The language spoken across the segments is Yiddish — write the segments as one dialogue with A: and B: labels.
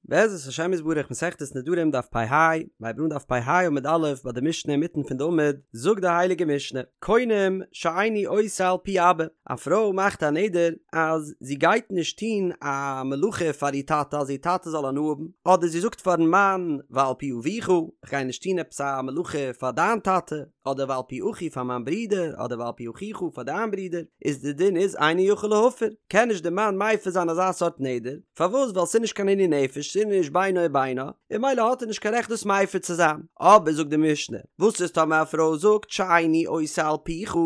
A: בעזרת השם יתברך מסכת נדרים דף פ"ה, מ'הייבט אן דף פ"ה עמוד א' ביי די משנה אינמיטן פון די עמוד, זאגט די הייליגע משנה, קונם שאיני עושה על פי אבא, א פרוי מאכט א נדר אז זי גייט נישט טון א מלאכה פאר איר טאטע אז איר טאטע זאל הנאה האבן, אדער זי זאגט פארן מאן ועל פי אביך, איך גיי נישט טון עפעס א מלאכה פאר דיין טאטע, אדער ועל פי אחי פאר מיין ברודער, אדער ועל פי אחיך פאר דיין ברודער, איז די דין איז אינו יכול להפר, קען נישט די מאן מפר זיין אזא סארט נדר, פארוואס? ווייל ס'איז נישט קיין עינוי נפש, ס'איז נישט בינו ובינה, און ממילא האט ער נישט קיין רעכט דאס מפר צו זיין. אבער זאגט די משנה, וואס איז טאמער א פרוי זאגט שאיני עושה על פיך,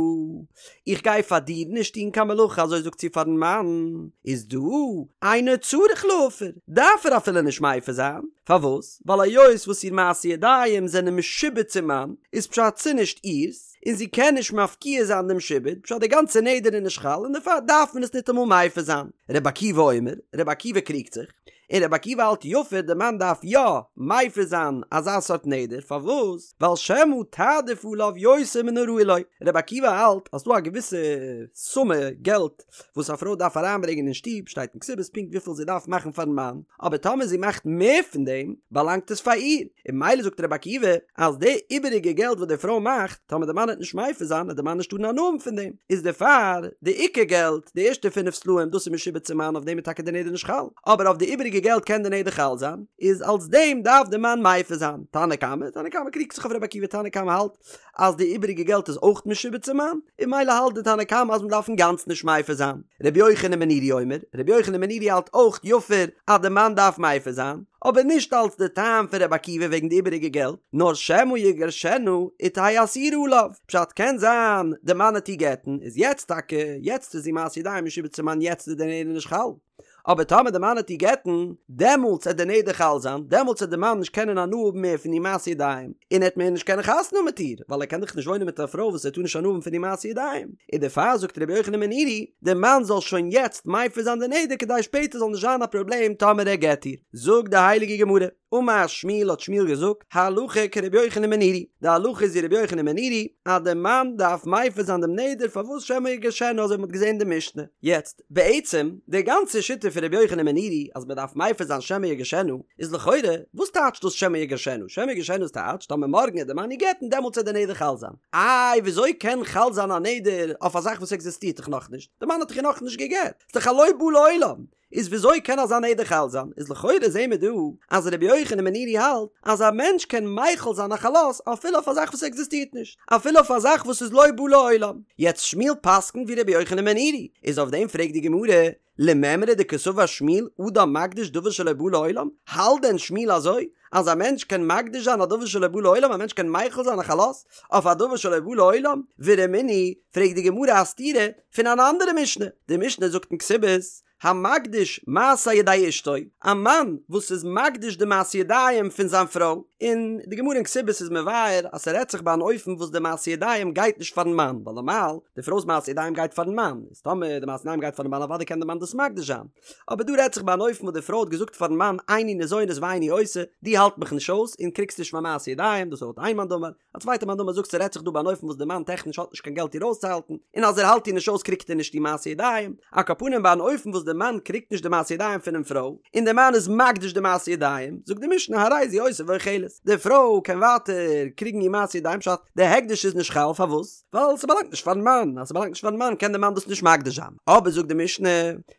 A: איך גיי פאר דיר נישט טון קיין מלאכה אזוי זאגט זי פארן מאן, איז דא אינו צריך להפר, דארף ער אפילו נישט מפר זיין, פארוואס? ווייל היות וואס איר מעשי ידיים זענען משועבד צום מאן, איז פשט ס'נישט איר'ס, און זי קען נישט מפקיע זיין דעם שעבוד, פשט די גאנצע נדר איז נישט חל און דערפאר דארף מען עס ניטאמאל מפר זיין. רבי עקיבא אומר, רבי עקיבא קריגט זיך, און רבי עקיבא האלט יפר די מאן דארף יא מפר זיין אזא סארט נדר, פארוואס? ווייל שמא תעדיף עליו יותר מן הראוי לו, רבי עקיבא האלט אז ס'דא א געוויסע סומע געלט וואס א פרוי דארף אריינברענגען אין שטוב, שטייט אין כתובות פונקט וויפיל זי דארף מאכן פארן מאן, אבער טאמער זי מאכט מער פון דעם, באלאנגט עס פאר איר, און ממילא זאגט רבי עקיבא אז די איבעריגע געלט וואס די פרוי מאכט, טאמער די מאן וועט נישט מפר זיין, וועט די מאן נישט טארן הנאה האבן פון דעם, איז דערפאר די עיקר געלט, די ערשטע פינף סלעים, דאס איז משועבד צום מאן, אויף דעם איז טאקע די נדר נישט חל, אבער אויף די איבעריגע געלט קען די נדר חל זיין, איז אלס דעם דארף די מאן מפר זיין. תנא קמא, תנא קמא קריגט זיך אויף רבי עקיבא, תנא קמא האלט אז די איבעריגע געלט איז אויך משועבד צום מאן, און ממילא האלט די תנא קמא אז מען דארף אינגאנצן נישט מפר זיין. רבי יוחנן בן נורי אומר, רבי יוחנן בן נורי האלט אויך יפר אז די מאן דארף מפר זיין, אבער נישט אלס די טעם פון רבי עקיבא וועגן די איבעריגע געלט, נאר שמא יגרשנה ותהא אסורה עליו, פשט קען זיין די מאן עט איר גט'ן, איז יעצט טאקע, יעצט איז זי מעשי ידיים משועבד צום מאן יעצט איז די נדר נישט חל. אבער טאמער די מאן עט איר גט'ן, דעמאלטס עט די נדר חל זיין, דעמאלטס עט די מאן נישט קענען הנאה האבן מער פון איר מעשי ידיים, און ער עט מער נישט קענען חתונה האבן מיט איר, ווייל ער קען דאך נישט וואוינען מיט א פרוי וואס ער טאר נישט הנאה האבן פון איר מעשי ידיים, און דערפאר זאגט רבי יוחנן בן נורי, די מאן זאל שוין יעצט מפר זיין די נדר כדי שפעטער זאל נישט זיין א פראבלעם טאמער ער גט איר. זאגט די הייליגע גמרא. אמר שמואל האט שמואל געזאגט, הלכה כרבי יוחנן בן נורי, די הלכה איז ווי רבי יוחנן בן נורי, אז די מאן דארף מפר זיין דעם נדר פארוואס שמא יגרשנה אזוי ווי מ'האט געזען אין די משנה. יעצט, בעצם, די גאנצע שיטה פון רבי יוחנן בן נורי אז מ'דארף מפר זיין שמא יגרשנה, איז לכאורה, וואס טייטשט דאס שמא יגרשנה? שמא יגרשנה איז טייטש, טאמער מארגן עט די מאן איר גט'ן דעמאלטס עט די נדר חל זיין. איי וויאזוי קען חל זיין א נדר אויף א זאך וואס עקזיסטירט דאך נאכנישט? די מאן האט דאך איר נאכנישט גע'גט, ס'איז דאך א לא בא לעולם. איז וויאזוי קען אזא נדר חל זיין? איז לכאורה זעהן מיר דא אז רבי יוחנן בן נורי האלט אז א מענטש קען מחיל זיין א חלות אפילו אויף א זאך וואס עקזיסטירט נישט, אפילו אויף א זאך וואס איז לא בא לעולם. יעצט שמואל פסק'נט ווי רבי יוחנן בן נורי, איז אויף דעם פרעגט די גמרא, למימרא דקסבר שמואל אדם מקדיש דבר שלא בא לעולם, האלט דען שמואל אזוי אז א מענטש קען מקדיש זיין א דבר שלא בא לעולם, א מענטש קען מחיל זיין א חלות אויף א דבר שלא בא לעולם? ורמינהי, פרעגט די גמרא א סתירה פון אן אנדערע משנה, די משנה זאגט אין כתובות, המקדיש מעשה ידי אשתו, א מאן וואס איז מקדיש די מעשה ידיים פון זיין פרוי, און די גמרא אין כתובות איז מבאר אז ס'רעדט זיך ביי אן אופן וואס די מעשה ידיים גייט נישט פארן מאן, ווייל נארמאל די פרוי'ס מעשה ידיים גייט פארן מאן, איז טאמער די מעשה ידיים גייט פארן מאן אוודאי קען די מאן דאס מקדיש זיין, אבער דא רעדט זיך ביי אן אופן וואס די פרוי האט געזאגט פארן מאן איני ניזונת ואיני עושה, דו האלט מיך נישט אויס און קריגסט נישט מיין מעשה ידיים, דאס איז לויט איין מאן דאמר, א צווייטע מאן דאמר זאגט ס'רעדט זיך דא ביי אן אופן וואס די מאן טעכניש האט נישט קיין געלט איר אויסצוהאלטן, און אז ער האלט איר נישט אויס קריגט ער נישט די מעשי ידיים, על כל פנים ביי אן אופן וואס די מאן קריגט נישט די מעשי ידיים פונעם פרוי, און די מאן איז מקדיש די מעשי ידיים, זאגט די משנה הרי זו עושה ואוכלת, די פרוי קען ווייטער קריגן איר מעשי ידיים פשט די הקדש איז נישט חל פארוואס? ווייל ס'באלאנגט נישט פארן מאן, אז ס'באלאנגט נישט פארן מאן קען די מאן דאס נישט מקדיש זיין, אבער זאגט די משנה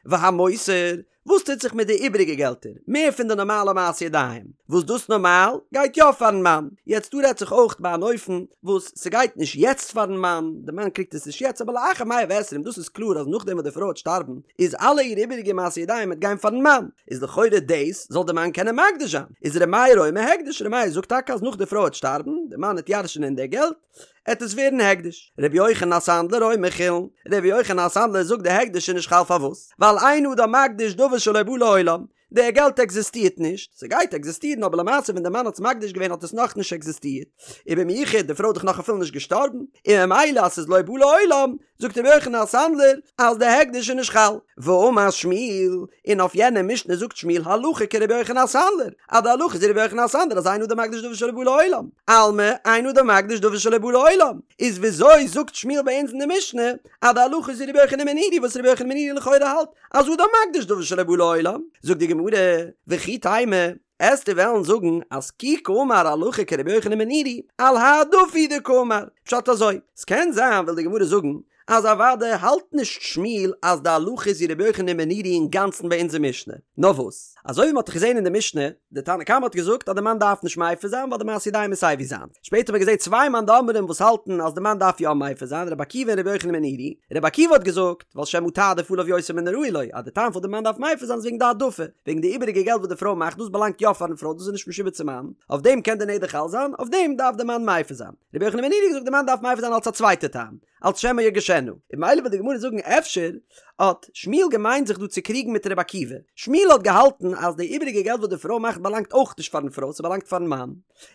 A: והמותר וואס טוט זיך מיט די איבעריגע געלטער, מער פון די נארמאלע מעשי ידיים, וואס דאס נארמאל גייט יא פארן מאן, יעצט דא רעדט זיך אויך ביי אן אופן וואס ס'גייט נישט יעצט פארן מאן, די מאן קריגט עס נישט יעצט אבער לאחר מאה ועשרים דאס איז קלאר אז נאכדעם וואס די פרוי וועט שטארבן איז אלע איר איבעריגע מעשי ידיים וועט גיין פארן מאן, איז לכאורה דאס זאל די מאן קענען מקדיש זיין, איז ר' מאיר אומר הקדש, ר' מאיר זאגט טאקע אז נאך די פרוי וועט שטארבן, די מאן וועט ירש'נען די געלט, עט עס ווערן הקדש. רבי יוחנן הסנדלר אומר חולין, רבי יוחנן הסנדלר זאגט די הקדש איז נישט חל פארוואס? ווייל אין אדם מקדיש דבר שלא בא לעולם, די געלט עקזיסטירט נישט, ס'גייט עקזיסטירן אבער למעשה ווען די מאן האט עס מקדיש געווען האט עס נאכנישט עקזיסטירט, ובמיוחד די פרוי איז דאך נאך אפילו נישט געשטארבן, און ממילא אז ס'איז לא בא לעולם, זאגט רבי יוחנן הסנדלר אז די הקדש איז נישט חל. ואמר שמואל, און אויף יענע משנה זאגט שמואל הלכה כרבי יוחנן הסנדלר, אז די הלכה איז ווי רבי יוחנן הסנדלר אז אין אדם מקדיש דבר שלא בא לעולם, אלמא אין אדם מקדיש דבר שלא בא לעולם, איז וויאזוי זאגט שמואל ביי אונז אין די משנה אז די הלכה איז ווי רבי יוחנן בן נורי וואס רבי יוחנן בן נורי לכאורה האלט אז אדם מקדיש דבר שלא בא לעולם, זאגט די גמרא. גמרא, וכי תימא, עסטו וועלן זאגן אז כי קאמר הלכה כרבי יוחנן בן נורי, על העדפה הוא דקאמר, פשט אזוי, ס'קען זיין וויל די גמרא זאגן אז אוודאי האלט נישט שמואל אז די הלכה איז ווי רבי יוחנן בן נורי אינגאנצן ביי אונזער משנה, נאר וואס, אזוי ווי מ'האט דאך געזען אין די משנה, די תנא קמא האט געזאגט אז די מאן דארף נישט מפר זיין ווייל די מעשה ידיים איז סייווי זיינס, שפעטער האט מען געזען צוויי מאן דאמרים וואס האלטן אז די מאן דארף יא מפר זיין, רבי עקיבא און רבי יוחנן בן נורי, רבי עקיבא האט געזאגט, ווייל שמא תעדיף עליו יותר מן הראוי לו, אז די טעם פארוואס די מאן דארף מפר זיין איז וועגן די העדפה, וועגן די איבעריגע געלט וואס די פרוי מאכט דאס באלאנגט יא פארן פרוי דאס איז נישט משועבד צום מאן, אויף דעם קען די נדר חל זיין, אויף דעם דארף די מאן מפר זיין. רבי יוחנן בן נורי האט געזאגט די מאן דארף מפר זיין אלס א צווייטע טעם, אלס שמא ירגישנה, און ממילא וויל די גמרא זאגן אפשר האט שמואל געמיינט זיך דא צו קריגן מיט רבי עקיבא, שמואל האט געהאלטן אז די איבעריגע געלט וואס די פרוי מאכט באלאנגט אויך נישט פארן פרוי ס'באלאנגט פארן מאן,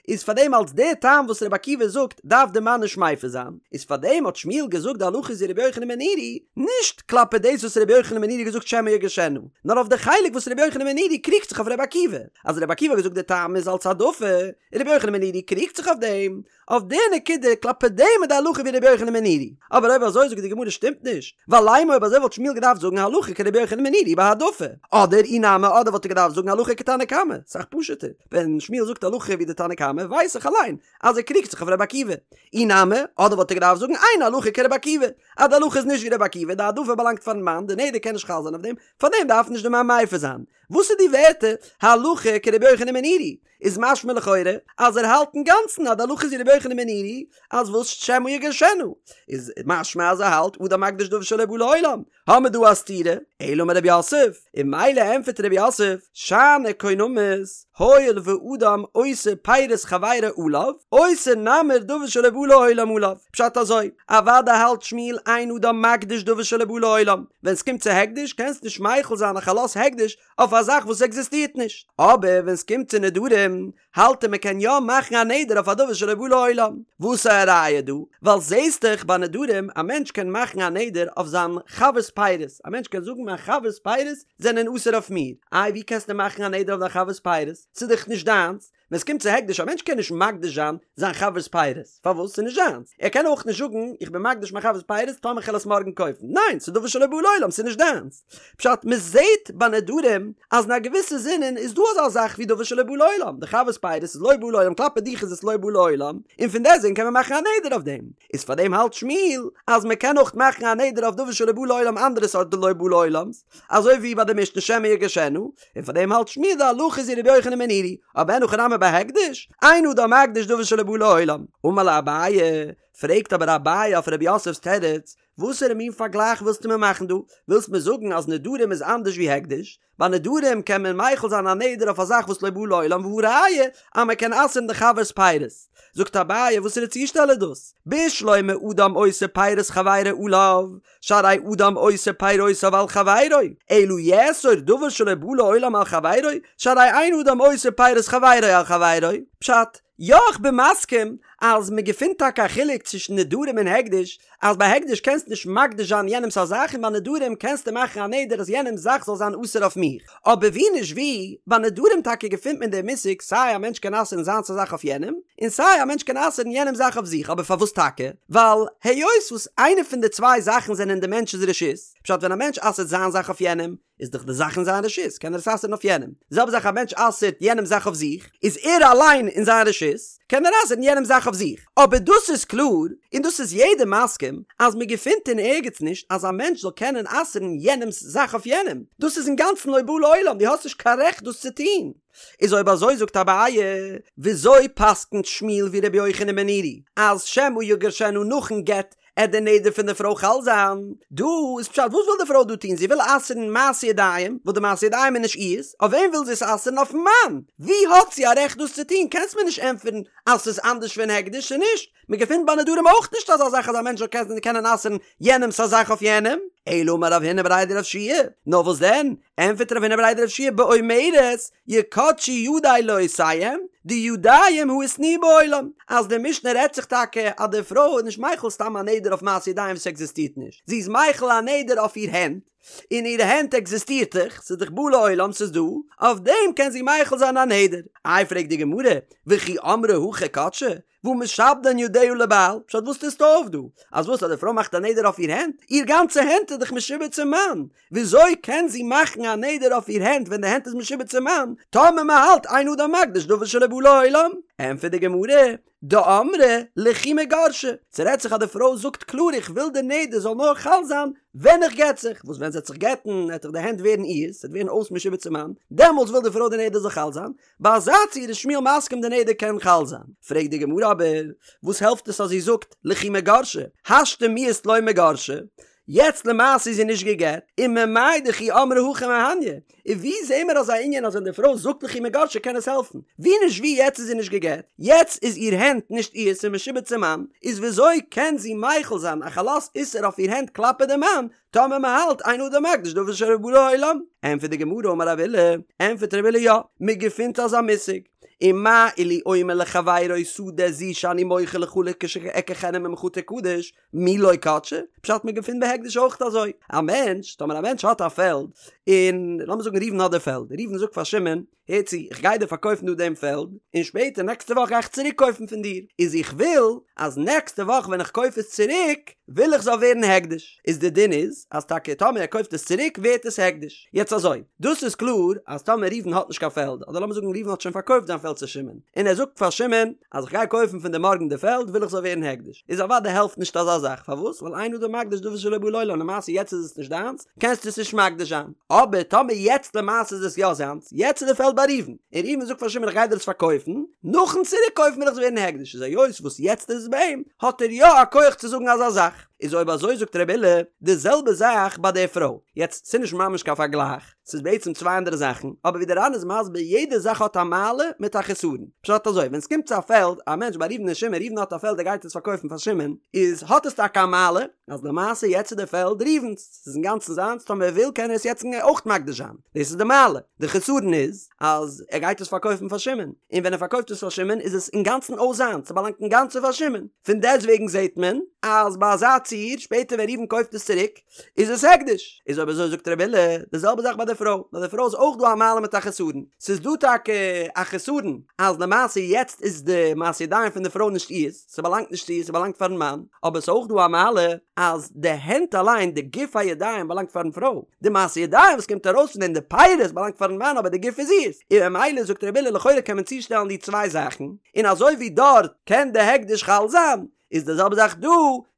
A: איז פארדעם אלס די טעם וואס רבי עקיבא זאגט דארף די מאן נישט מפר זיין, איז פארדעם האט שמואל געזאגט די הלכה איז ווי רבי יוחנן בן נורי, נישט כלפי דאס וואס רבי יוחנן בן נורי האט געזאגט שמא ירגישנה, נאר אויף די חלק וואס רבי יוחנן בן נורי קריגט זיך אויף רבי עקיבא, אז רבי עקיבא האט געזאגט די טעם איז אלס העדפה, און רבי יוחנן בן נורי קריגט זיך אויף דעם, אויף די נקודה כלפי דעם איז די הלכה ווי רבי יוחנן בן נורי, אבער אויב אזוי זאגט די גמרא שטימט נישט, ווייל לימא אויב אזוי וואלט שמואל געדארפט זאגן הלכה כרבי יוחנן בן נורי בהעדפה, אדער אי נמי אדער וואלט ער געדארפט זאגן הלכה כתנא קמא, סאך פשוט'ער, ווען שמואל זאגט הלכה ווי די תנא קמא ווייס איך אליין אז ער קריגט זיך אויף רבי עקיבא, אי נמי אדער וואלט ער געדארפט זאגן אין הלכה כרבי עקיבא, אז די הלכה איז נישט ווי רבי עקיבא, די העדפה באלאנגט פארן מאן, די נדר קען נישט חל זיין אויף דעם, פארדעם דארף נישט די מאן מפר זיין. וואס איז די ווערטער הלכה כרבי יוחנן בן נורי? איז משמע לכאורה אז ער האלט אינגאנצן אז די הלכה איז ווי רבי יוחנן בן נורי אז וואס שמא ירגישנה איז משמע אז ער האלט אדם מקדיש דבר שלא בא לעולם האמיר דא א סתירה אלא אמר רב יוסף און ממילא ענפערט רב יוסף שאני קונמות הואיל ואדם אוסר פירות חברו עליו אוסר נמי דבר שלא בא לעולם עליו פשט אזוי אוודאי האלט שמואל אין אדם מקדיש דבר שלא בא לעולם ווען סקומט צו הקדש קענסט נישט מחיל זיין א חלות הקדש אויף א זאך וואס עקזיסטירט נישט. אבער ווען סקומט צו נדרים, האלט ער מ'קען יא מאכן א נדר אויף א דבר שלא בא לעולם. וואס איז א ראיה דא? ווייל זעהסט דאך ביי נדרים, א מענטש קען מאכן א נדר אויף זיין חבר'ס פירות, א מענטש קען זאגן מיין חבר'ס פירות זענען אסור אויף מיר. איי ווי קענסטו מאכן א נדר אויף דיין חבר'ס פירות? ס'איז דאך נישט דיינס. ווען ס'קומט צו הקדש, א מענטש קען נישט מקדיש זיין זיין חבר'ס פירות, פארוואס? ס'איז נישט זיינס. ער קען אויך נישט זאגן, איך בין מקדיש מיין חבר'ס פירות טאמער כ'על עס מארגן קויפן. ניין, ס'איז דבר שלא בא לעולם, ס'איז נישט דיינס. פשט, מ'זעט ביי נדרים אז אין א געוויסע זינען איז דא אזא זאך ווי דבר שלא בא לעולם, די חבר'ס פירות איז לא בא לעולם, כלפי דיך איז עס לא בא לעולם, און פון דעסטוועגן קען מען מאכן א נדר אויף דעם. איז פאר דעם האלט שמואל אז מ'קען אויך מאכן א נדר אויף דבר שלא בא לעולם אנדערע סארט לא בא לעולם'ס, אזוי ווי ביי די משנה שמא ירגישנה, און פאר דעם האלט שמואל די הלכה איז ווי רבי יוחנן בן נורי, אבער אין הכי נמי ביי הקדש, אין אדם מקדיש דבר שלא בא לעולם. אמר ליה אביי, פרעגט אבער אביי אויף רב יוסף'ס תירוץ, וואסערע מין פארגלייך ווילסטו מיר מאכן דא? ווילסט מיר זאגן אז נדרים איז אנדערש ווי הקדש? ביי נדרים קען מען מחיל זיין א נדר אויף א זאך וואס לא בא לעולם והא ראיה אז מען קען אסר'ן די חבר'ס פירות. זאגט אביי וואסערע צושטעל איז דאס? בשלמא אדם אוסר פירות חברו עליו, שהרי אדם אוסר פירותיו על חברו, אלא יאסור דבר שלא בא לעולם על חברו, שהרי אין אדם אוסר פירות חברו על חברו. פשט, יא איך בין מסכים אז מען געפינט טאקע א חילוק צווישן נדרים און הקדש, אז ביי הקדש קענסטו נישט מקדיש זיין יענעמס א זאך און ביי נדרים קענסטו מאכן א נדר אז יענעמס זאך זאל זיין אסור אויף מיך, אבער ווי נישט ווי, ביי נדרים טאקע געפינט מען דעם מושג סיי א מענטש קען אסר'ן זיינס א זאך אויף יענעם, און סיי א מענטש קען אסר'ן יענעמס זאך אויף זיך, אבער פארוואס טאקע? ווייל היות וואס איינע פון די צוויי זאכן זענען אין די מענטש'ס רשות, פשט ווען א מענטש אסר'ט זיין זאך אויף יענעם, איז דאך די זאך אין זיין רשות, קען ער עס אסר'ן אויף יענעם. די זעלבע זאך א מענטש אסר'ט יענעמ'ס זאך אויף זיך, איז ער אליין אין זיין רשות, קען ער אסר'ן יענעמ'ס זאך אויף זיך. אבער דאס איז קלאר, און דאס איז יעדער מסכים, אז מען געפינט אין ערגעץ נישט אז א מענטש זאל קענען אסר'ן יענעמ'ס זאך אויף יענעם. דאס איז אינגאנצן לא בא לעולם, דו האסט נישט קיין רעכט דאס צו טון. איז אויב אזוי זאגט אביי, וויאזוי פסק'נט שמואל ווי רבי יוחנן בן נורי, אז שמא יגרשנה נאכן גט עט די נדר פון די פרוי חל זיין? דא איז פשט וואס וויל די פרוי דא טון? זי וויל אסר'ן מעשה ידיים, וואס די מעשה ידיים איז נישט איר'ס, אויף וועם וויל זי עס אסר'ן? אויפן מאן! ווי האט זי א רעכט דאס צו טון? קענסט מיר נישט ענטפערן אז ס'איז אנדערש פון הקדש, ס'איז נישט. מען געפינט ביי נדרים אויך נישט אזא זאך אז א מענטש זאל קענען אסר'ן יענעמ'ס א זאך אויף יענעם. אלא אמר רב הונא בריה דרב יהושע, נאר וואס דען? ענטפערט רב הונא בריה דרב יהושע באומרת יקדשו ידי לעושיהם, דידים הא איתנהו בעולם, אז די משנה רעדט זיך טאקע אז די פרוי איז נישט מחיל סתם א נדר אויף מעשה ידיים וואס עקזיסטירט נישט, זי איז מחיל א נדר אויף איר הענט. און איר הענט עקזיסטירט דאך, ס'איז דאך בא לעולם, ס'איז דא, אויף דעם קען זי מחיל זיין א נדר. איי פרעגט די גמרא, וכי אמרה הכי קדשה, והא משעבדן ידיה לבעל, פשט וואס טוסטו אויף דא? אז וואס אז די פרוי מאכט א נדר אויף איר הענט? איר גאנצע הענט איז דאך משועבד צום מאן, וויאזוי קען זי מאכן א נדר אויף איר הענט ווען די הענט איז משועבד צום מאן, טאמער מען האלט אין אדם מקדיש דבר שלא בא לעולם? ענטפערט די גמרא, דאמרה לכי מיגרשה, ס'רעדט זיך אז די פרוי זאגט קלאר איך וויל די נדר זאל נאר חל זיין ווען איך גט זיך, וואס ווען זי וועט זיך גט'ן וועט דאך די הענט ווערן אירס, ס'וועט ווערן אויס משועבד צום מאן, דעמאלטס וויל די פרוי די נדר זאל חל זיין, ביי אזא ציור איז שמואל מסכים די נדר קען חל זיין. פרעגט די גמרא אבער, וואס העלפט עס אז זי זאגט לכי מיגרשה, השתא מיהת לא מיגרשה, יעצט למעשה איז זי נישט גע'גט, וממאי דכי אמרה הכי מהניא, און ווי זעהן מיר אזא ענין אז ווען די פרוי זאגט לכי מיגרשה קען עס העלפן? ווי נישט ווי יעצט איז זי נישט גע'גט, יעצט איז איר הענט נישט אירס און משועבד צום מאן, איז וויאזוי קען זי מחיל זיין א חלות איסור אויף איר הענט כלפי די מאן, טאמער מען האלט אין אדם מקדיש דבר שלא בא לעולם? ענטפערט די גמרא אמר רב אילא, ענטפערט רב אילא יא, מען געפינט אזא מושג, ומה אילו אומר לחבירו שדה זו שאני מוכר לך לכשאקחנה ממך תקדש, מי לא קדשה? פשט מען געפינט בהקדש אויך אזוי, א מענטש, טאמער א מענטש האט א פעלד, און לאמיר זאגן ראובן האט די פעלד, ראובן זאגט פאר שמעון, הער צו, איך גיי דיר פארקויפן דא דעם פעלד, און שפעטער נעקסטע וואך גיי איך צוריק קויפן פון דיר, איז איך וויל אז נעקסטע וואך ווען איך קויף עס צוריק, וויל איך זאל ווערן הקדש, איז די דין איז, אז טאקע טאמער ער קויפט עס צוריק ווערט עס הקדש. יעצט אזוי, דאס איז קלאר אז טאמער ראובן האט נישט קיין פעלד, אדער לאמיר זאגן ראובן האט שוין פארקויפט זיין פעלד צו שמעון, און ער זאגט פאר שמעון, אז איך גיי קויפן פון דיר מארגן די פעלד וויל איך זאל ווערן הקדש, איז אוודאי העלפט נישט אזא זאך, פארוואס? ווייל אין אדם מקדיש דבר שלא בא לעולם, למעשה יעצט איז עס נישט דיינס, קענסטו עס נישט מקדיש זיין, אבער טאמער יעצט למעשה איז עס יא זיינס, יעצט איז די פעלד ביי ראובן, און ראובן זאגט פאר שמעון איך גיי דיר עס פארקויפן, נאכן צוריק קויפן וויל איך זאל ווערן הקדש, איז היות וואס יעצט איז עס ביי אים, האט ער יא א כח צו זאגן אזא זאך, איז אויב אזוי זאגט רבי אילא, די זעלבע זאך ביי די פרוי, יעצט ס'נישט ממש קיין פארגלייך, ס'איז בעצם צוויי אנדערע זאכן, אבער ווי דער ר"ן איז מסביר יעדע זאך האט א מעלה מיט א חסרון. פשט אזוי, ווען ס'קומט צו א פעלד, א מענטש ביי ראובן און שמעון, ראובן האט א פעלד ער גייט עס פארקויפן פאר שמעון, איז האט עס טאקע א מעלה, אז למעשה יעצט איז די פעלד ראובן'ס, ס'איז אינגאנצן זיינס, טאמער ער וויל קען ער עס יעצט אויך מקדיש זיין, דאס איז די מעלה. די חסרון איז, אז ער גייט עס פארקויפן פאר שמעון, און ווען ער פארקויפט עס פאר שמעון איז עס אינגאנצן אויס זיינס, ס'באלאנגט אינגאנצן פאר שמעון. פון דעסטוועגן זעט מען, אז ביי אזא ציור, שפעטער ווען ראובן קויפט עס צוריק, איז עס הקדש. איז אויב אזוי זאגט רבי אילא, די זעלבע זאך ביי די פרוי, ביי די פרוי איז אויך דא א מעלה מיט א חסרון, ס'איז דא טאקע א חסרון אז למעשה יעצט איז די מעשה ידיים פון די פרוי נישט אירס, ס'באלאנגט נישט צו איר, ס'באלאנגט פארן מאן, אבער ס'איז אויך דא א מעלה אז די הענט אליין, די גוף הידיים באלאנגט פארן פרוי, די מעשה ידיים וואס קומט ארויס פון דעם, די פירות באלאנגט פארן מאן אבער די גוף איז אירס, און ממילא זאגט רבי אילא לכאורה קען מען צושטעלן די צוויי זאכן, און אזוי ווי דארט קען די הקדש חל זיין, איז די זעלבע זאך דא,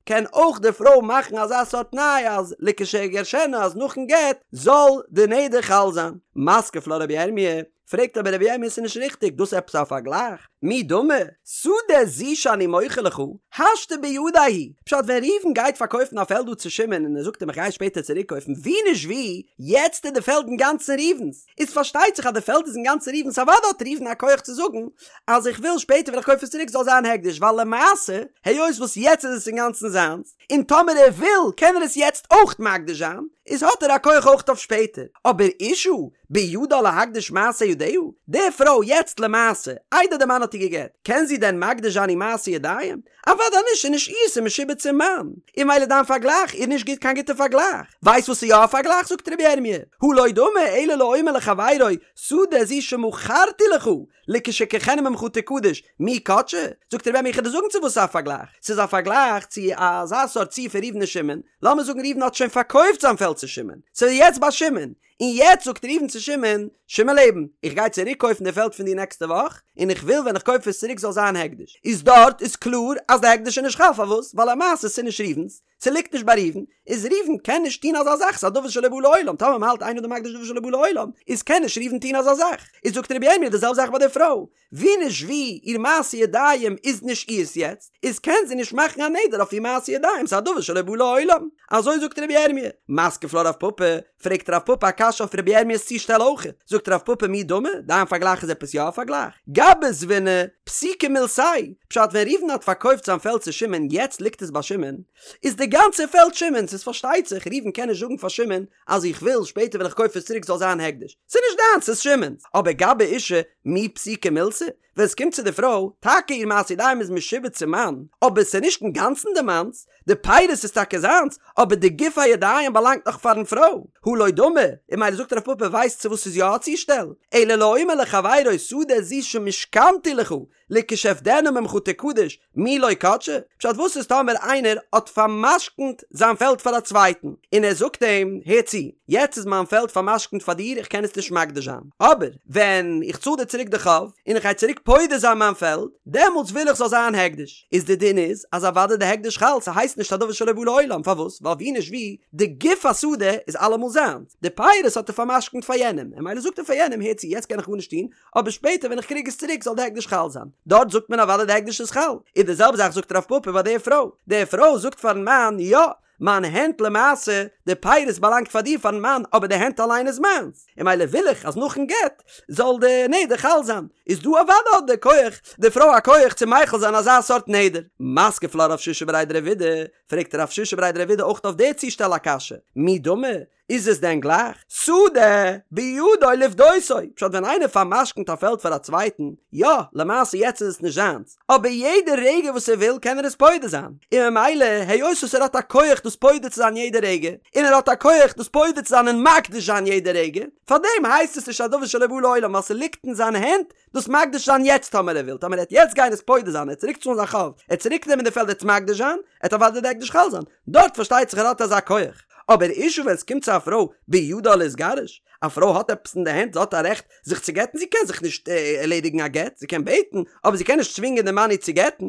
A: קען אויך די פרוי מאכן אזא סארט תנאי אז לכשאגרשנה אז נאכן גט זאל די נדר חל זיין. מתקיף לה רבי ירמי', פרעגט אבער רבי ירמי' ס'איז נישט ריכטיג, דאס עפעס א פארגלייך? מי דמי? שדה זו שאני מוכר לך, השתא בידיה היא. פשט ווען ראובן גייט פארקויפן א פעלד דא צו שמעון און ער זאגט אים איך גיי שפעטער צוריק קויפן ווי נישט ווי, יעצט איז די פעלד אינגאנצן ראובן'ס, איז פארשטייט זיך אז די פעלד איז אינגאנצן ראובן'ס אוודאי האט ראובן א כח צו זאגן אז איך וויל שפעטער ווען איך קויף עס צוריק זאל זיין הקדש ווייל למעשה היות וואס יעצט איז עס אינגאנצן זיינס און טאמער ער וויל קען ער עס יעצט אויך מקדיש זיין איז האט ער א כח אויך אויף שפעטער אבער אשה בידה להקדיש מעשה ידיה די פרוי יעצט למעשה איידער די מאן האט איר גע'גט קען זי דען מקדיש זיין איר מעשה ידיים? אוודאי נישט, ס'איז נישט איר, ס'איז משועבד צום מאן. און ממילא דיין פארגלייך איז נישט גוט קיין גוטע פארגלייך. ווייסט וואס איז יא א פארגלייך? זאגט רבי ירמי', הא לא דמי אלא לאומר לחבירו, שדה זו שמכרתי לך, לכשאקחנה ממך תקדש, מי קדשה? זאגט רבי ירמי' איך וועל דיר זאגן צו וואס ס'איז א פארגלייך. ס'איז א פארגלייך צו אזא סארט ציור פון ראובן און שמעון. לאמיר זאגן ראובן האט שוין פארקויפט זיין פעלד צו שמעון. ס'איז יעצט ביי שמעון. און יעצט זאגט ראובן צו שמעון, שמעון לעבן, איך גיי צוריק קויפן די פעלד פון דיר נעקסטע וואך, און איך וויל ווען איך קויף עס צוריק זאל זיין הקדש. איז דארט איז קלאר אז די הקדש איז נישט חל, פארוואס? ווייל למעשה ס'איז נישט ראובן'ס, ס'ליגט נישט ביי ראובן, איז ראובן קען נישט טון אזא זאך, ס'איז א דבר שלא בא לעולם, טאמער מ'האלט אין אדם מקדיש דבר שלא בא לעולם, איז קען נישט ראובן טון אזא זאך. איז זאגט רבי ירמי' די זעלבע זאך ביי די פרוי, ווי נישט ווי, איר מעשה ידיים איז נישט אירס יעצט, איז קען זי נישט מאכן א נדר אויף איר מעשה ידיים, ס'איז א דבר שלא בא לעולם. אזוי זאגט רבי ירמי'. מתקיף לה רב פפא, פרעגט רב פפא א קשיא אויף רבי ירמיה'ס צושטעל אויך. זאגט רב פפא מי דמי, דיין פארגלייך איז עפעס יא א פארגלייך? גבי זבינא, פסיקא מילתיה, פשט ווען ראובן האט פארקויפט זיין פעלד צו שמעון יעצט ליגט עס ביי שמעון, איז די גאנצע פעלד שמעון'ס, איז פארשטייט זיך ראובן קען נישט זאגן פאר שמעון אז איך וויל שפעטער ווען איך קויף עס צוריק זאל זיין הקדש, ס'איז נישט דיינס ס'איז שמעון'ס, אבער גבי אשה מי פסיקא מילתא, ווען עס קומט צו די פרוי, טאקע איר מעשה ידיים איז משועבד צום מאן, אבער ס'איז נישט אינגאנצן די מאנ'ס, די פירות איז טאקע זיינס, אבער די גוף הידיים באלאנגט נאך פארן פרוי, הא לא דמי, און ממילא זאגט רב פפא ווייסט צו וואס ס'איז יא א צושטעל, אלא לאומר לחבירו שדה זו שמשכנתי לך, לכשאפדנה ממך תקדש, מי לא קדשה? פשט וואס איז טאמער איינער האט פאר'משכנ'ט זיין פעלד פאר א צווייטן, און ער זאגט אים, הער צו, יעצט איז מיין פעלד פאר'משכנ'ט פאר דיר איך קען עס נישט מקדיש זיין, אבער ווען איך צאל דיר צוריק די חוב, און איך גיי צוריק פודה זיין מיין פעלד, דעמאלטס וויל איך זאל זיין הקדש. איז די דין איז, אז אוודאי די הקדש חל, ס'הייסט נישט א דבר שלא בא לעולם, פארוואס? ווייל ווי נישט ווי, די גוף השדה איז אלעמאל זיינס, די פירות האט ער פאר'משכנ'ט פאר יענעם, און ממילא זאגט ער פאר יענעם, הער צו, יעצט קען איך גארנישט טון, אבער שפעטער ווען איך קריג עס צוריק זאל די הקדש חל זיין. דארט זאגט מען אוודאי די הקדש איז חל. און די זעלבע זאך זאגט רב פפא ביי די פרוי. די פרוי זאגט פארן מאן, יא, מיין הענט למעשה, די פירות באלאנגט פאר דיר פארן מאן, אבער די הענט אליין איז מיינס. און ממילא וויל איך אז נאכן גט זאל די נדר חל זיין. איז דא אוודאי האט די כח, די פרוי א כח צו מחיל זיין אזא סארט נדר. מתקיף לה רב שישא בריה דרב אידי, פרעגט רב שישא בריה דרב אידי אויך אויף די צושטעל א קשיא. מי דמי? איז עס דען גלייך? שדה בידו לפדותו, פשט ווען איינער פאר'משכנ'ט א פעלד פאר א צווייטן, יא, למעשה יעצט איז עס נישט זיינס, אבער יעדע רגע וואס ער וויל קען ער עס פודה זיין, און ממילא היות וואס ער האט א כח דאס פודה צו זיין יעדע רגע, און ער האט א כח דאס פודה צו זיין און מקדיש זיין יעדע רגע, פארדעם הייסט עס נישט א דבר שלא בא לעולם ווייל ס'ליגט אין זיין הענט דאס מקדיש זיין יעצט טאמער ער וויל, טאמער ער וועט יעצט גיין עס פודה זיין, ער וועט צוריק צאלן זיין חוב, ער וועט צוריק נעמען די פעלד ער וועט עס מקדיש זיין, עט אוודאי די הקדש חל זיין, דארט פארשטייט זיך ער האט אזא כח, אבער אשה ווען עס קומט צו א פרוי בידה להתגרש, א פרוי האט עפעס אין די הענט זי האט א רעכט זיך צו גט'ן זי קען זיך נישט ערלעדיגן א גט, זי קען בעטן, אבער זי קען נישט צווינגען די מאן איר צו גט'ן,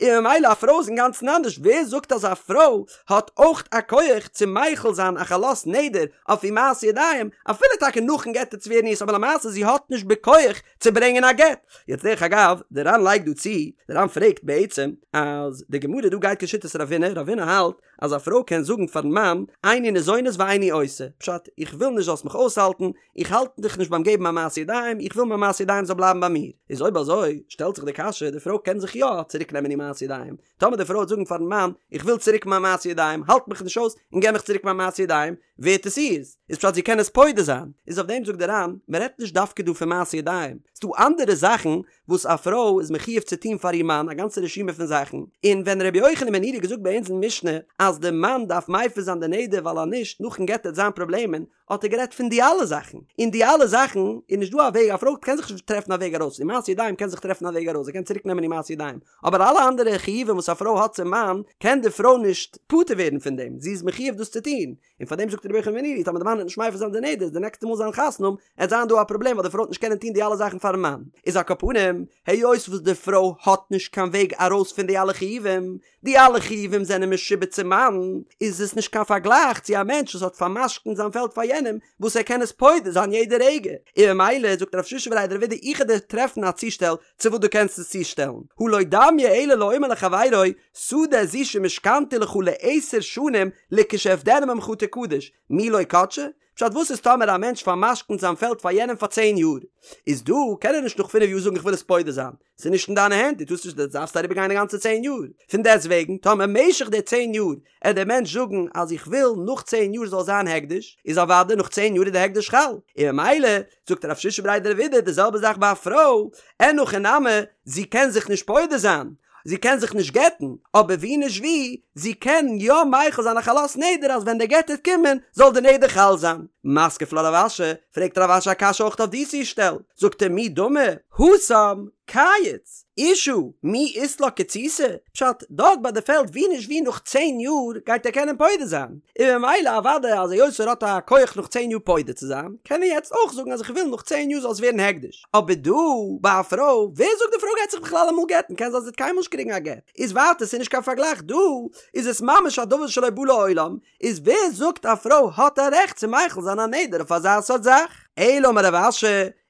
A: און ממילא א פרוי איז אינגאנצן אנדערש, ווער זאגט אז א פרוי האט אויך א כח צו מחיל זיין א חלות נדר אויף איר מעשה ידיים, אפילו טאקע נאכן גט וועט עס ווערן אירס אבער למעשה זי האט נישט בכח צו ברענגען א גט. יעצט דרך אגב, די ר"ן לייגט דא צו, די ר"ן פרעגט בעצם אז די גמרא דא גייט כשיטת רב הונא, רב הונא האלט אז א פרוי קען זאגן פארן מאן איני ניזונת ואיני עושה, פשט, איך וויל נישט זאלסט מיך אויסהאלטן, איך האלט דיך נישט ביים געבן מיין מעשה ידיים, איך וויל מיין מעשה ידיים זאל בלייבן ביי מיר. איז אויב אזוי שטעלט זיך די קשיא, די פרוי קען זיך יא צוריק נעמען איר מעשה ידיים, טאמער די פרוי וועט זאגן פארן מאן, איך וויל צוריק מיין מעשה ידיים, האלט מיך נישט אויס און געב מיך צוריק מיין מעשה ידיים, ווערט עס אירס, איז פשט זי קען עס פודה זיין. איז אויף דעם זאגט די ר"ן, מען רעדט נישט דווקא דא פון מעשה ידיים, ס'דא אנדערע זאכן וואס א פרוי איז מחיוב צו טון פאר איר מאן, א גאנצע רשימה פון זאכן, און ווען רבי יוחנן בן נורי האט געזאגט ביי אונז אין משנה אז די מאן דארף מפר זיין די נדר ווייל אז נישט נאכן גט וועט זיין פראבלעמען, האט ער גערעדט פון די אלע זאכן, און די אלע זאכן איז נישט דא א וועג, א פרוי קען זיך נישט טרעפן א וועג ארויס, איר מעשה ידיים קען זיך טרעפן א וועג ארויס, זי קען צוריק נעמען איר מעשה ידיים, אבער אלע אנדערע חיובים וואס א פרוי האט צום מאן, קען די פרוי נישט פטור ווערן פון דעם, זי איז מחיוב דאס צו טון, און פאר דעם זאגט רבי יוחנן בן נורי, טאמער די מאן וועט נישט מפר זיין די נדר, איז די נעקסטע מאל זיי וועלן חתונה האבן, עט זיין דא א פראבלעם ווייל די פרוי וועט נישט קענען טון די אלע זאכן פארן מאן, איז על כל פנים, היות וואס די פרוי האט נישט קיין וועג ארויס פון די אלע חיובים, די אלע חיובים זענען משועבד צום מאן, איז עס נישט קיין פארגלייך צו א מענטש וואס האט פאר'משכנ'ט זיין פעלד פאר יענעם, וואס ער קען עס פודה זיין יעדע רגע, און ממילא זאגט רב שישא בריה דרב אידי איך וועל דיר טרעפן א צושטעל צו וואס דו קענסט עס צושטעלן, הא לא דמיא אלא לאומר לחבירו, שדה זו שמשכנתי לך לעשר שנים לכשאפדנה ממך תקדש, מי לא קדשה? פשט וואס איז טאמער א מענטש פאר'משכנ'ט זיין פעלד פאר יענעם פאר צען יאר, איז דא קען ער נישט נאך פינף יאר זאגן איך וויל עס פודה זיין, ס'איז נישט אין דיינע הענט, דו טארסט נישט, דו דארפסט אריבער גיין די גאנצע צען יאר, פון דעסט וועגן טאמער משך די צען יאר עט דער מענטש זאגן אז איך וויל נאך צען יאר זאל זיין הקדש, איז אוודאי נאך צען יאר איז די הקדש חל, און ממילא זאגט רב שישא בריה דרב אידי די זעלבע זאך ביי א פרוי, אין הכי נמי, זי קען זיך נישט פודה זיין, זי קען זיך נישט גט'ן, אבער ווי נישט ווי, זי קען יא מחיל זיין א חלות נדר אז ווען די גט וועט קומען זאל די נדר חל זיין. מתקיף לה רב אשי, פרעגט רב אשי א קשיא אויך אויף די צושטעל, זאגט ער מי דמי, התם, קיץ, אשה, מי אית לה קיצותא, פשט, דארט ביי די פעלד ווי נישט ווי נאך צען יאר גייט ער קענען פודה זיין, און ממילא אוודאי אז היות ער האט א כח נאך צען יאר פודה צו זיין, קען ער יעצט אויך זאגן אז איך וויל נאך צען יאר זאל עס ווערן הקדש. אבער דא ביי א פרוי, ווער זאגט די פרוי גייט זיך בכלל אמאל גט'ן, קען זיין זי וועט קיינמאל נישט קריגן א גט, איז ווייטער ס'איז נישט קיין פארגלייך, דא איז עס ממש א דבר שלא בא לעולם, איז ווער זאגט א פרוי האט א רעכט צו מחיל זיין א נדר אויף אזא סארט זאך? אלא אמר רב אשי,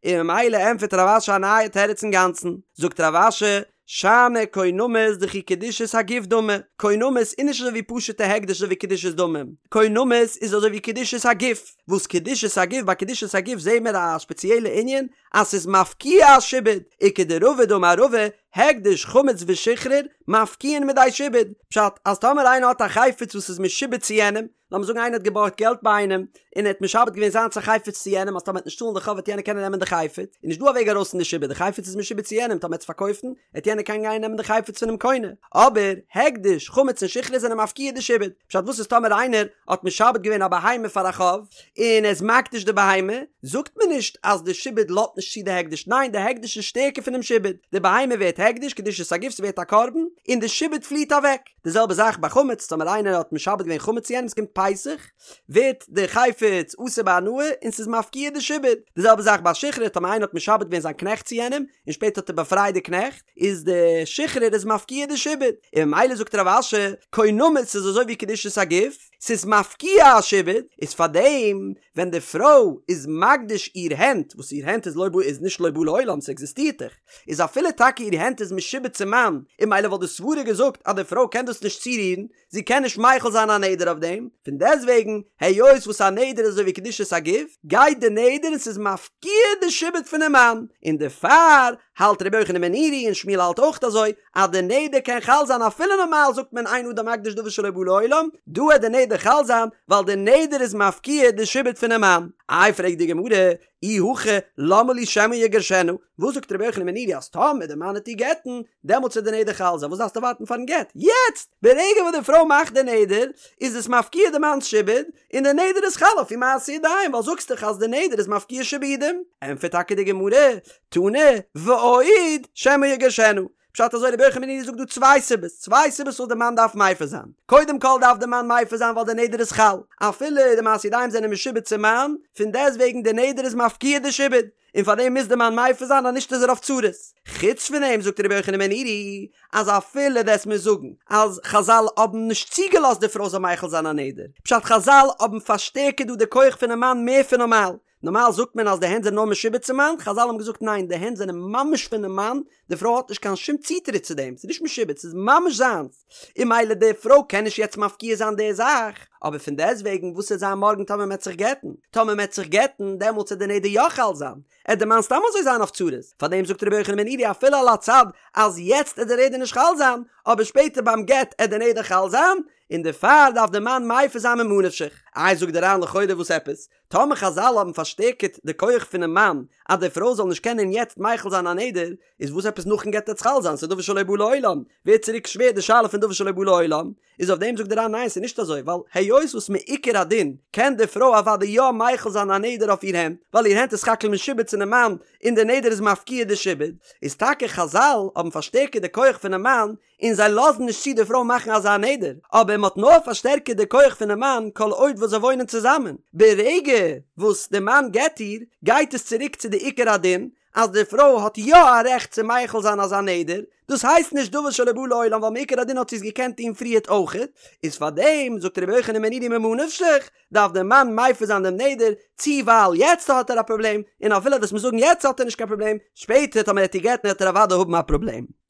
A: און ממילא ענטפערט רב אשי א נייע תירוץ אינגאנצן, זאגט רב אשי, שאני קונמות דכי קדושת הגוף דמי, קונמות איז נישט אזוי ווי פשוט'ע הקדש אזוי ווי קדושת דמים, קונמות איז אזוי ווי קדושת הגוף, וואס קדושת הגוף ביי קדושת הגוף זעהן מיר א ספעציעלע ענין אז ס'איז מפקיע א שעבוד, וכדרבא דאמר רבא, הקדש, חמץ ושחרור, מפקיעין מידי שעבוד, פשט, אז טאמער איינער האט א חפץ וואס איז משועבד צו יענעם, לאמיר זאגן איינער האט געבארגט געלט ביי איינעם, און ער האט משעבד געווען זיינס א חפץ צו יענעם אז טאמער ער וועט נישט צאלן די חוב וועט יענער קענען נעמען די חפץ, איז נישט דא א וועג ארויס פון די שעבוד, די חפץ איז משועבד צו יענעם, טאמער ער וועט עס פארקויפן, וועט יענער קענען גיין נעמען די חפץ פונעם קונה. אבער, הקדש, חמץ און שחרור זענען מפקיע די שעבוד. פשט וואס איז טאמער איינער האט משעבד געווען א בהמה פאר א חוב, און ער איז מקדיש די בהמה, זאגט מען נישט אז די שעבוד לאזט נישט צו די הקדש, ניין די הקדש איז שטערקער פונעם שעבוד, די בהמה ווערט הקדש, קדושת הגוף, ס'ווערט א קרבן, און די שעבוד פליעט אוועק. די זעלבע זאך ביי חמץ, טאמער איינער האט משעבד געווען חמץ צו יענעם, ס'קומט פסח, ווערט די חפץ אסור בהנאה און ס'איז מפקיע די שעבוד. די זעלבע זאך ביי שחרור, טאמער איינער האט משעבד געווען זיין קנעכט צו יענעם, און שפעטער האט ער באפרייט די קנעכט, איז די שחרור איז מפקיע די שעבוד. און ממילא זאגט רב אשי, קונמות איז אזוי ווי קדושת הגוף, ס'איז מפקיע א שעבוד, איז פארדעם ווען די פרוי איז מקדיש איר הענט, וואס איר הענט איז לא בא איז נישט לא בא לעולם, ס'עקזיסטירט דאך, איז אפילו טאקע איר הענט איז משועבד צום מאן, און ממילא וואלט די סברה געזאגט אז די פרוי קען דאס נישט צורירן, זי קען נישט מחיל זיין א נדר אויף דעם, פון דעסטוועגן, היות וואס א נדר איז אזוי ווי קדושת הגוף, גייט די נדר און ס'איז מפקיע די שעבוד פונעם מאן, און דערפאר האלט רבי יוחנן בן נורי און שמואל האלט אויך אזוי, אז די נדר קען חל זיין אפילו נארמאל זאגט מען אין אדם מקדיש דבר שלא בא לעולם, דא וועט די נדר חל זיין ווייל די נדר איז מפקיע די שעבוד פונעם מאן. איי פרעגט די גמרא, אי הכי למה לי שמא יגרשנה, וואס זאגט רבי יוחנן בן נורי אז טאמער די מאן וועט איר גט'ן, דעמאלטס וועט די נדר חל זיין, וואס דארפסטו ווארטן פארן גט? יעצט! ברגע וואס די פרוי מאכט די נדר, איז עס מפקיע די מאנ'ס שעבוד, און די נדר איז חל אויף איר מעשה ידיים, ווייל זאגסט דאך אז די נדר איז מפקיע שעבודים. ענטפערט טאקע די גמרא, תנא, ועוד, שמא יגרשנה. פשט אזוי רבי יוחנן בן נורי זאגט דא צוויי סיבות, צוויי סיבות וואס די מאן דארף מפר זיין. קודם כל דארף די מאן מפר זיין ווייל די נדר איז חל, אפילו די מעשה ידיים זענען משועבד צום מאן, פון דעסטוועגן די נדר איז מפקיע די שעבוד, און פאר דעם מוז די מאן מפר זיין אז נישט איז ער אויף צרות. חוץ פון דעם זאגט רבי יוחנן בן נורי אז אפילו וועסט מיר זאגן אז חזל האבן נישט צוגעלאזט די פרוי זאל מחיל זיין א נדר, פשט חזל האבן פארשטערקערט דא די כח פונעם מאן מער פון נארמאל, נארמאל זאגט מען אז די הענט זענען נאר משועבד צום מאן, חזל האבן געזאגט ניין די הענט זענען ממש פונעם מאן, די פרוי האט נישט קיין שום צוטריט צו דעם, ס'איז נישט משועבד ס'איז ממש זיינס, און ממילא די פרוי קען נישט יעצט מפקיע זיין די זאך, אבער פון דעסטוועגן וואס וועט זיין מארגן טאמער מ'עט זיך גט'ן, טאמער מ'עט זיך גט'ן דעמאלטס וועט די נדר יא חל זיין, עט די מאן סתם אזוי זיין אויף צרות, פארדעם זאגט רבי יוחנן בן נורי אפילו על הצד אז יעצט עט די נדר נישט חל זיין, אבער שפעטער ביים גט עט די נדר חל זיין, און דערפאר דארף די מאן מפר זיין ממה נפשך. איי זאגט די ר"ן לכאורה וואס עפעס? טאמער חזל האבן פארשטערקערט די כח פונעם מאן אז די פרוי זאל נישט קענען יעצט מחיל זיין א נדר, איז וואס עפעס נאכן גט עט עס חל זיין? ס'איז דבר שלא בא לעולם, ווערט צוריק שווער די שאלה פון דבר שלא בא לעולם, איז אויף דעם זאגט די ר"ן ניין ס'איז נישט אזוי ווייל היות וואס מעיקר הדין קען די פרוי אוודאי יא מחיל זיין א נדר אויף איר הענט ווייל איר הענט איז סך הכל משועבד צונעם מאן און די נדר איז מפקיע די שעבוד, איז טאקע חזל האבן פארשטערקערט די כח פונעם מאן און זיי לאזן נישט צו די פרוי מאכן אזא נדר, אבער מען האט נאר פארשטערקערט די כח פונעם מאן כל עוד וואס זיי וואוינען צוזאמען, ברגע וואס די מאן גט איר, גייט עס צוריק צו די עיקר הדין, אז די פרוי האט יא א רעכט צו מחיל זיין אזא נדר, דאס הייסט נישט דבר שלא בא לעולם ווייל מעיקר הדין האט זי עס געקענט טון פריערט אויכעט, איז פארדעם זאגט רבי יוחנן בן נורי ממה נפשך, דארף דער מאן מפר זיין דעם נדר, צו ווייל יעצט האט ער א פראבלעם, און אפילו וועסט מיר זאגן יעצט האט ער נישט קיין פראבלעם, שפעטער טאמער ער וועט איר גט'ן וועט ער אוודאי האבן א פראבלעם.